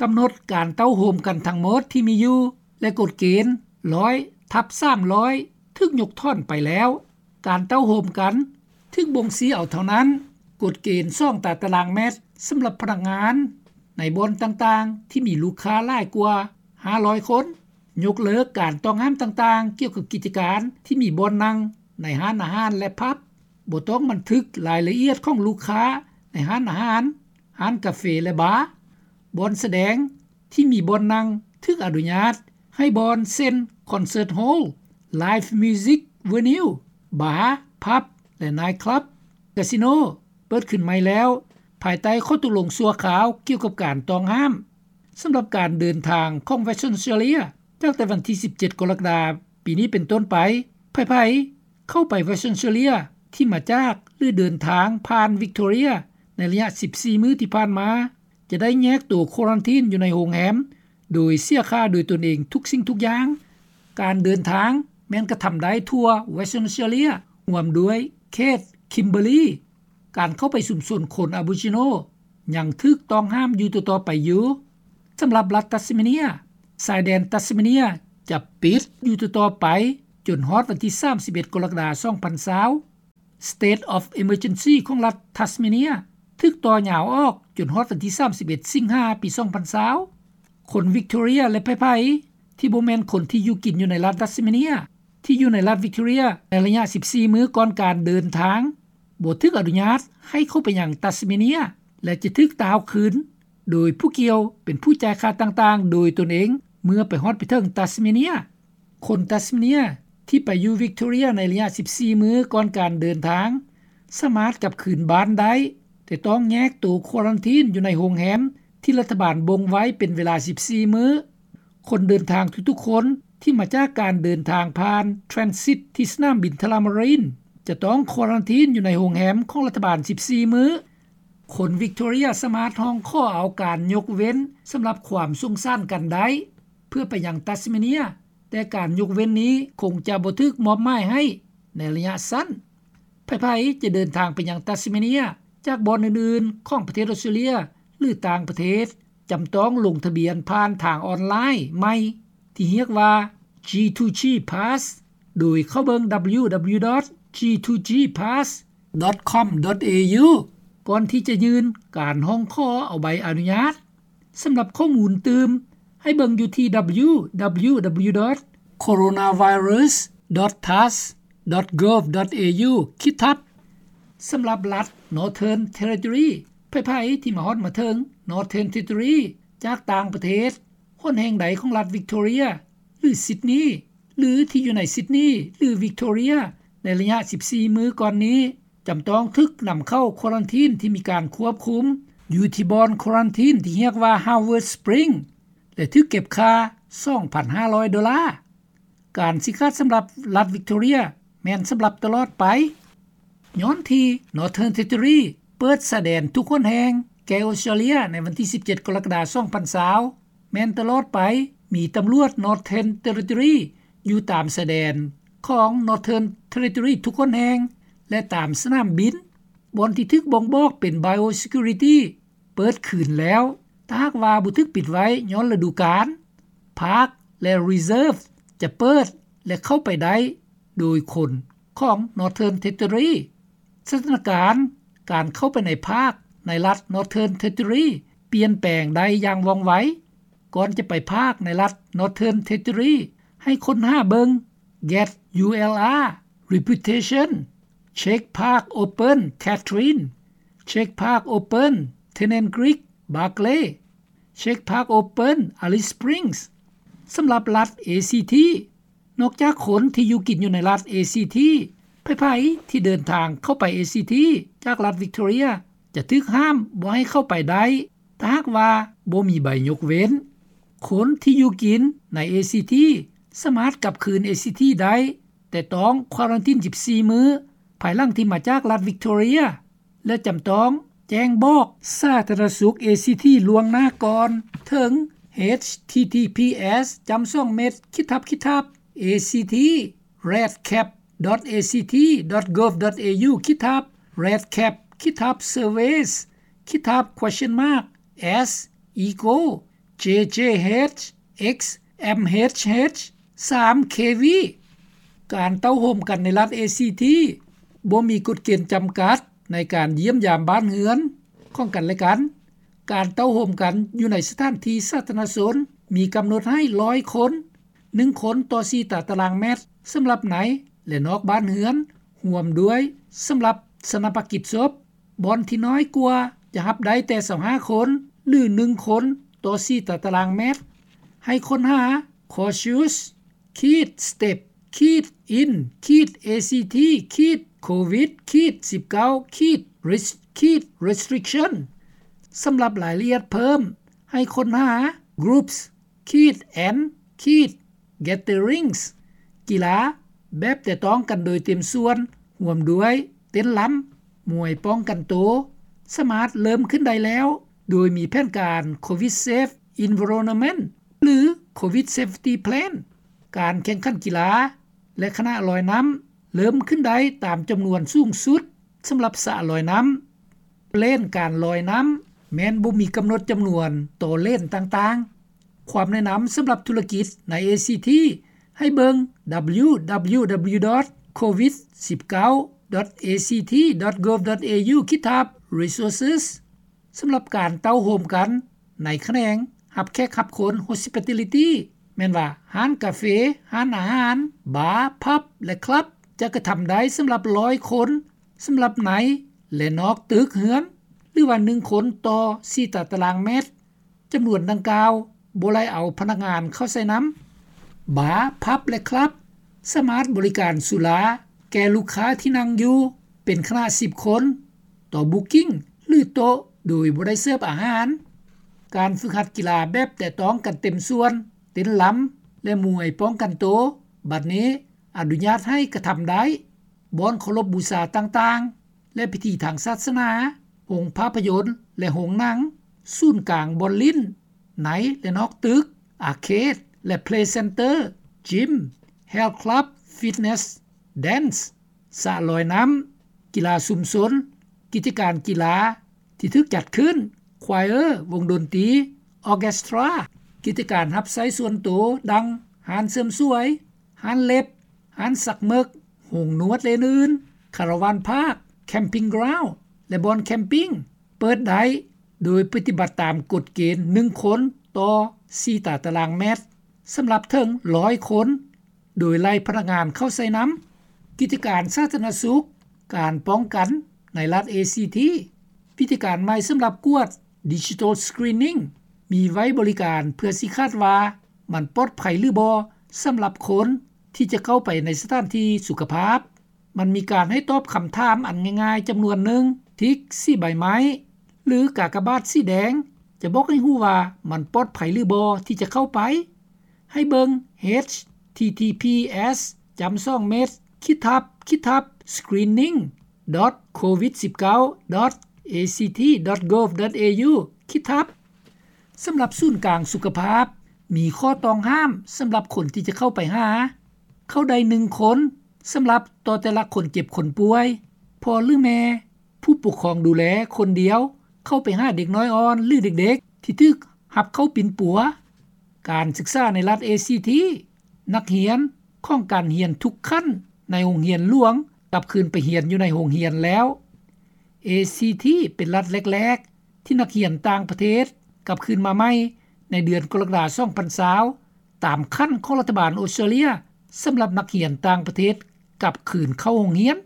ກຳນົດການເຕົ້າໂຮມກັນທັງໝົດທີ່ມີຢູ່ ແລະ ກົດເກນ ໜຶ່ງຮ້ອຍ ທັບ ສາມຮ້ອຍ ຖືກຍົກຖອນໄປແລ້ວ. ການເຕົ້າໂຮມກັນຖືກບົ່ງຊີ້ເອົາເທົ່ານັ້ນ. ກົດເກນສອງຕາຕະລາງແມັດສຳລັບພະນັກງານໃນບ່ອນຕ່າງໆທີ່ມີລູກຄ້າຫຼາຍກວ່າຫ້າຮ້ອຍຄົນ. ຍົກເລີກການຕ້ອງຫ້າມຕ່າງໆກ່ຽວກັບກິດຈະການທີ່ມີບ່ອນນັ່ງໃນຮ້ານອາຫານ ແລະ ຜັບ. ບໍ່ຕ້ອງບັນທຶກລາຍລະອຽດຂອງລູກຄ້າໃນຮ້ານອາຫານ, ຮ້ານກາເຟ ແລະ ບາ. ບ່ອນສະແດງທີ່ມີບ່ອນນັ່ງຖືກອະນຸຍາດໃຫ້ບ່ອນເຊັ່ນ ຄອນເສີດໂຮລ, ໄລຟ໌ມິວຊິກເວນິວ, ບາ, ຜັບ ແລະ ໄນຄລັບ, ກາສິໂນ ເປີດຂຶ້ນໃໝ່ແລ້ວ ພາຍໃຕ້ຂໍ້ຕົກລົງຊົ່ວຄາວກ່ຽວກັບການຕ້ອງຫ້າມ. ສຳລັບການເດີນທາງຂອງ Western Australia ຈາກແຕ່ວັນທີສິບເຈັດ ກໍລະກະດາປີນີ້ເປັນຕົ້ນໄປ, ໃຜໆເຂົ້າໄປ Western Australia ທີ່ມາຈາກ ຫຼື ເດີນທາງຜ່ານ Victoria ໃນໄລຍະສິບສີ່ມື້ທີ່ຜ່ານມາ ຈະໄດ້ແຍກໂຕຄວາຣັນທີນຢູ່ໃນໂຮງແຮມ ໂດຍເສຍຄ່າໂດຍຕົນເອງທຸກສິ່ງທຸກຢ່າງ. ການເດີນທາງແມ່ນກະທຳໄດ້ທົ່ວ Western Australia ຮ່ວມດ້ວຍເຂດ Kimberley. ການເຂົ້າໄປຊຸມຊົນຄົນ Aboriginal ຍັງຖືກຕ້ອງຫ້າມຢູ່ຕໍ່ໆໄປຢູ່. ສຳລັບລັດ Tasmania, ຊາຍແດນ Tasmania ຈະປິດຢູ່ຕໍ່ໆໄປຈົນຮອດວັນທີສາມສິບເອັດ ກໍລະກະດາ ສອງພັນຊາວ. State of Emergency ຂອງລັດ Tasmania ຖືກຕໍ່ຍາວອອກຈົນຮອດວັນທີສາມສິບເອັດ ສິງຫາ ປີສອງພັນຊາວ. ຄົນ Victoria ແລະ ໃຜໆທີ່ບໍ່ແມ່ນຄົນທີ່ຢູ່ກິນຢູ່ໃນລັດ Tasmania ທີ່ຢູ່ໃນລັດ Victoria ໃນໄລຍະສິບສີ່ມື້ກ່ອນການເດີນທາງ ບໍ່ຖືກອະນຸຍາດໃຫ້ເຂົ້າໄປຍັງ Tasmania ແລະ ຈະຖືກຕ່າວຄືນໂດຍຜູ້ກ່ຽວເປັນຜູ້ຈ່າຍຄ່າຕ່າງໆໂດຍຕົນເອງເມື່ອໄປຮອດໄປເຖິງ Tasmania. ຄົນ Tasmania ທີ່ໄປຢູ່ Victoria ໃນໄລຍະສິບສີ່ມື້ກ່ອນການເດີນທາງ ສາມາດກັບຄືນບ້ານໄດ້, ແຕ່ຕ້ອງແຍກໂຕຄວາຣັນທີນຢູ່ໃນໂຮງແຮມທີ່ລັດຖະບານບົ່ງໄວ້ເປັນເວລາສິບສີ່ມື້. ຄົນເດີນທາງທຸກໆຄົນທີ່ມາຈາກການເດີນທາງຜ່ານ transit ທີ່ສະໜາມບິນ Tullamarine ຈະຕ້ອງຄວາຣັນທີນຢູ່ໃນໂຮງແຮມຂອງລັດຖະບານສິບສີ່ມື້. ຄົນ Victoria ສາມາດຮ້ອງຂໍເອົາການຍົກເວັ້ນສຳລັບຄວາມສົງສານກັນໄດ້ ເພື່ອໄປຍັງ Tasmania, ແຕ່ການຍົກເວັ້ນນີ້ຄົງຈະບໍ່ຖືກມອບໝາຍໃຫ້ໃນໄລຍະສັ້ນ. ໃຜໆຈະເດີນທາງໄປຍັງ Tasmania ຈາກບ່ອນອື່ນໆຂອງປະເທດອອສເຕຣເລັຽ ຫຼື ຕ່າງປະເທດ ຈຳຕ້ອງລົງທະບຽນຜ່ານທາງອອນລາຍໃໝ່ທີ່ຮຽກວ່າ G two G Pass ໂດຍເຂົ້າເບິ່ງ www.g2gpass.com.au ກ່ອນທີ່ຈະຍື່ນການຮ້ອງຂໍເອົາໃບອະນຸຍາດ. ສຳລັບຂໍ້ມູນຕື່ມ ໃຫ້ເບິ່ງຢູ່ທີ່ www.coronavirus.tass.gov.au ຂີດທັບ. ສຳລັບລັດ Northern Territory, ໃຜໆທີ່ມາຮອດມາເຖິງ Northern Territory ຈາກຕ່າງປະເທດ, ຫົນແຫ່ງໃດຂອງລັດ Victoria ຫຼື Sydney ຫຼື ທີ່ຢູ່ໃນ Sydney ຫຼື Victoria ໃນໄລຍະສິບສີ່ມື້ກ່ອນນີ້ ຈຳຕ້ອງຖືກນຳເຂົ້າຄວາຣັນທີນທີ່ມີການຄວບຄຸມ ຢູ່ທີ່ບ່ອນຄວາຣັນທີນທີ່ຮຽກວ່າ Howard Spring ແລະ ຖືກເກັບຄ່າສອງພັນຫ້າຮ້ອຍໂດລາ. ການຊີ້ຂາດສຳລັບລັດ Victoria ແມ່ນສຳລັບຕະຫຼອດໄປ. ຍ້ອນທີ່ Northern Territory ເປີດຊາຍແດນທຸກຫົນແຫ່ງແກ່ອອສເຕຣເລັຽໃນວັນທີສິບເຈັດ ກໍລະກະດາ ສອງພັນຊາວ ແມ່ນຕະຫຼອດໄປ ມີຕຳຫຼວດ Northern Territory ຢູ່ຕາມຊາຍແດນຂອງ Northern Territory ທຸກຫົນແຫ່ງ ແລະ ຕາມສະໜາມບິນ. ບ່ອນທີ່ຖືກບົ່ງບອກເປັນ Biosecurity ເປີດຄືນແລ້ວ. ຖ້າຫາກວ່າບໍ່ຖືກປິດໄວ້ຍ້ອນລະດູການ, park ແລະ reserve ຈະເປີດ ແລະ ເຂົ້າໄປໄດ້ໂດຍຄົນຂອງ Northern Territory. ສະຖານະການການເຂົ້າໄປໃນ park ໃນລັດ Northern Territory ປ່ຽນແປງໄດ້ຢ່າງວ່ອງໄວ. ກ່ອນຈະໄປ park ໃນລັດ Northern Territory ໃຫ້ຄົ້ນຫາເບິ່ງ Get U L R Reputation, Check Park Open Katherine, Check Park Open Tennant Creek Barkly, Check Park Open Alice Springs. ສຳລັບລັດ ACT, ນອກຈາກຄົນທີ່ຢູ່ກິນຢູ່ໃນລັດ ACT, ໃຜໆທີ່ເດີນທາງເຂົ້າໄປ ACT ຈາກລັດ Victoria ຈະຖືກຫ້າມບໍ່ໃຫ້ເຂົ້າໄປໄດ້ ຖ້າຫາກວ່າບໍ່ມີໃບຍົກເວັ້ນ. ຄົນທີ່ຢູ່ກິນໃນ ACT ສາມາດກັບຄືນ ACT ໄດ້, ແຕ່ຕ້ອງຄວາຣັນທີນສິບສີ່ມື້ ພາຍຫຼັງທີ່ມາຈາກລັດ Victoria ແລະ ຈຳຕ້ອງແຈ້ງບອກສາທາລະນະສຸກ ACT ລ່ວງໜ້າກ່ອນ ເຖິງ H T T P S ຈ້ຳສອງເມັດ ຂິດທັບຂິດທັບ A C T redcap dot A C T dot gov dot A U ຂິດທັບ redcap ຂິດທັບ surveys ຂິດທັບ question mark as echo ເຈເຈເຮັດ ເອັກ ເອັມເອັຊເຮັດ ສາມ ເຄວີ. ການເຕົ້າໂຮມກັນໃນລັດເອຊີທີ ບໍ່ມີກົດເກນຈຳກັດໃນການຢ້ຽມຢາມບ້ານເຮືອນຂອງກັນແລະກັນ. ການເຕົ້າໂຮມກັນຢູ່ໃນສະຖານທີ່ສາທາລະນະຊົນ ມີກຳນົດໃຫ້ ຮ້ອຍຄົນ, ໜຶ່ງຄົນຕໍ່ສີ່ຕາຕະລາງແມັດ ສຳລັບໃນ ແລະ ນອກບ້ານເຮືອນ, ຮ່ວມດ້ວຍສຳລັບຊາປະນະກິດສົບ. ບ່ອນທີ່ນ້ອຍກວ່າຈະຮັບໄດ້ແຕ່ຊາວຫ້າຄົນ ຫຼື ໜຶ່ງຄົນຕໍ່ສີ່ຕາຕະລາງແມັດ. ໃຫ້ຄົ້ນຫາ cautious ຂີດ step ຂີດ in ຂີດ A C T ຂີດ covid ຂີດ สิบเก้า ขีດ risk ຂີດ restriction. ສຳລັບລາຍລະອຽດເພີ່ມ ໃຫ້ຄົ້ນຫາ groups ຂີດ and ຂີດ gatherings ກິລາແບບແຕະຕ້ອງກັນໂດຍເຕັມສ່ວນ ຮ່ວມດ້ວຍເຕັ້ນລຳ, ມວຍປ້ອງກັນໂຕ ສາມາດເລີ່ມຂຶ້ນໄດ້ແລ້ວ ໂດຍມີແຜນການ Covid Safe Environment ຫຼື Covid Safety Plan. ການແຂ່ງຂັນກິລາ ແລະ ຄະນະລອຍນ້ຳ ເລີ່ມຂຶ້ນໄດ້ຕາມຈຳນວນສູງສຸດສຳລັບສະລອຍນ້ຳ. ເລນການລອຍນ້ຳແມ່ນບໍ່ມີກຳນົດຈຳນວນຕໍ່ເລນຕ່າງໆ. ຄວາມແນະນຳສຳລັບທຸລະກິດໃນ A C T ໃຫ້ເບິ່ງ www.covid19.act.gov.au ຂີດທັບ resources. ສຳລັບການເຕົ້າໂຮມກັນໃນຂະແໜງຮັບແຂກຮັບຄົນ hospitality ແມ່ນວ່າຮ້ານກາເຟ, ຮ້ານອາຫານ, ບາ, ຜັບ ແລະ ຄລັບ ຈະກະທຳໄດ້ສຳລັບ ໜຶ່ງຮ້ອຍຄົນ ສຳລັບໃນ ແລະ ນອກຕຶກເຮືອນ ຫຼືວ່າ ໜຶ່ງຄົນຕໍ່ສີ່ຕາຕະລາງແມັດ. ຈຳນວນດັ່ງກ່າວບໍ່ໄດ້ເອົາພະນັກງານເຂົ້າໃສ່ນຳ. ບາ, ຜັບ ແລະ ຄລັບ ສາມາດບໍລິການສຸລາແກ່ລູກຄ້າທີ່ນັ່ງຢູ່ເປັນຄະນະສິບຄົນຕໍ່ booking ຫຼື ໂຕະ ໂດຍບໍ່ໄດ້ເສີບອາຫານ. ການຝຶກຫັດກິລາແບບແຕະຕ້ອງກັນເຕັມສ່ວນ, ເຕັ້ນລຳ ແລະ ມວຍປ້ອງກັນໂຕ ບັດນີ້ອະນຸຍາດໃຫ້ກະທຳໄດ້. ບ່ອນເຄົາລົບບູຊາຕ່າງໆ ແລະ ພິທີທາງສາສະໜາ, ໂຮງພາບພະຍົນ ແລະ ໂຮງໜັງ, ສູນກາງບ່ອນຫຼິ້ນ ໃນ ແລະ ນອກຕຶກ, ອາເຄດ ແລະ ເພລເຊັນເຕີ, ຈິມ, ເຮລຄລັບ, ຟິດເນັສ, ແດນ, ສະລອຍນ້ຳ, ກິລາຊຸມຊົນ, ກິດຈະການກິລາທີ່ຖືກຈັດຂຶ້ນ, ຄວາຍເອີ, ວົງດົນຕີ, ອໍເຄສຕຣາ, ກິດຈະການຮັບໃຊ້ສ່ວນໂຕ ດັ່ງ ຮ້ານເສີມສວຍ, ຮ້ານເລັບ, ຮ້ານສັກເໝິກ, ໂຮງນວດ ແລະ ອື່ນໆ, ຄາລາວານພາກ, ແຄມປິງກຣາວ ແລະ ບ່ອນແຄມປິງ ເປີດໄດ້ ໂດຍປະຕິບັດຕາມກົດເກນ ໜຶ່ງຄົນຕໍ່ສີ່ຕາຕະລາງແມັດ ສຳລັບເຖິງ ໜຶ່ງຮ້ອຍຄົນ ໂດຍໄລ່ພະນັກງານເຂົ້າໃສ່ນຳ. ກິດຈະການສາທາລະນະສຸກ, ການປ້ອງກັນໃນລັດ A C T. ວິທີການໃໝ່ສຳລັບກວດ Digital Screening ມີໄວ້ບໍລິການເພື່ອຊີ້ຂາດວ່າມັນປອດໄພຫຼືບໍ່ ສຳລັບຄົນທີ່ຈະເຂົ້າໄປໃນສະຖານທີ່ສຸຂະພາບ. ມັນມີການໃຫ້ຕອບຄຳຖາມອັນງ່າຍໆຈຳນວນໜຶ່ງ, ທິກສີໃບໄມ້ ຫຼື ກາກະບາດສີແດງ ຈະບອກໃຫ້ຮູ້ວ່າມັນປອດໄພຫຼືບໍ່ທີ່ຈະເຂົ້າໄປ. ໃຫ້ເບິ່ງ https://screening.covid19.act.gov.au/. ສຳລັບສູນກາງສຸຂະພາບ ມີຂໍ້ຕ້ອງຫ້າມສຳລັບຄົນທີ່ຈະເຂົ້າໄປຫາ. ເຂົ້າໄດ້ໜຶ່ງຄົນ ສຳລັບຕໍ່ແຕ່ລະຄົນເຈັບຄົນປ່ວຍ, ພໍ່ ຫຼື ແມ່, ຜູ້ປົກຄອງດູແລຄົນດຽວ ເຂົ້າໄປຫາເດັກນ້ອຍອ່ອນ ຫຼື ເດັກໆທີ່ຖືກຮັບເຂົ້າປິ່ນປົວ. ການສຶກສາໃນລັດ A C T. ນັກຮຽນຂອງການຮຽນທຸກຂັ້ນໃນໂຮງຮຽນຫຼວງ ກັບຄືນໄປຮຽນຢູ່ໃນໂຮງຮຽນແລ້ວ. A C T ເປັນລັດແລກໆ ທີ່ນັກຮຽນຕ່າງປະເທດກັບຄືນມາໃໝ່ໃນເດືອນກໍລະກະດາ ສອງພັນຊາວ ຕາມຂັ້ນຂອງລັດຖະບານອົດສະຕຣາເລຍ ສຳລັບນັກຮຽນຕ່າງປະເທດກັບຄືນເຂົ້າໂຮງຮຽນ.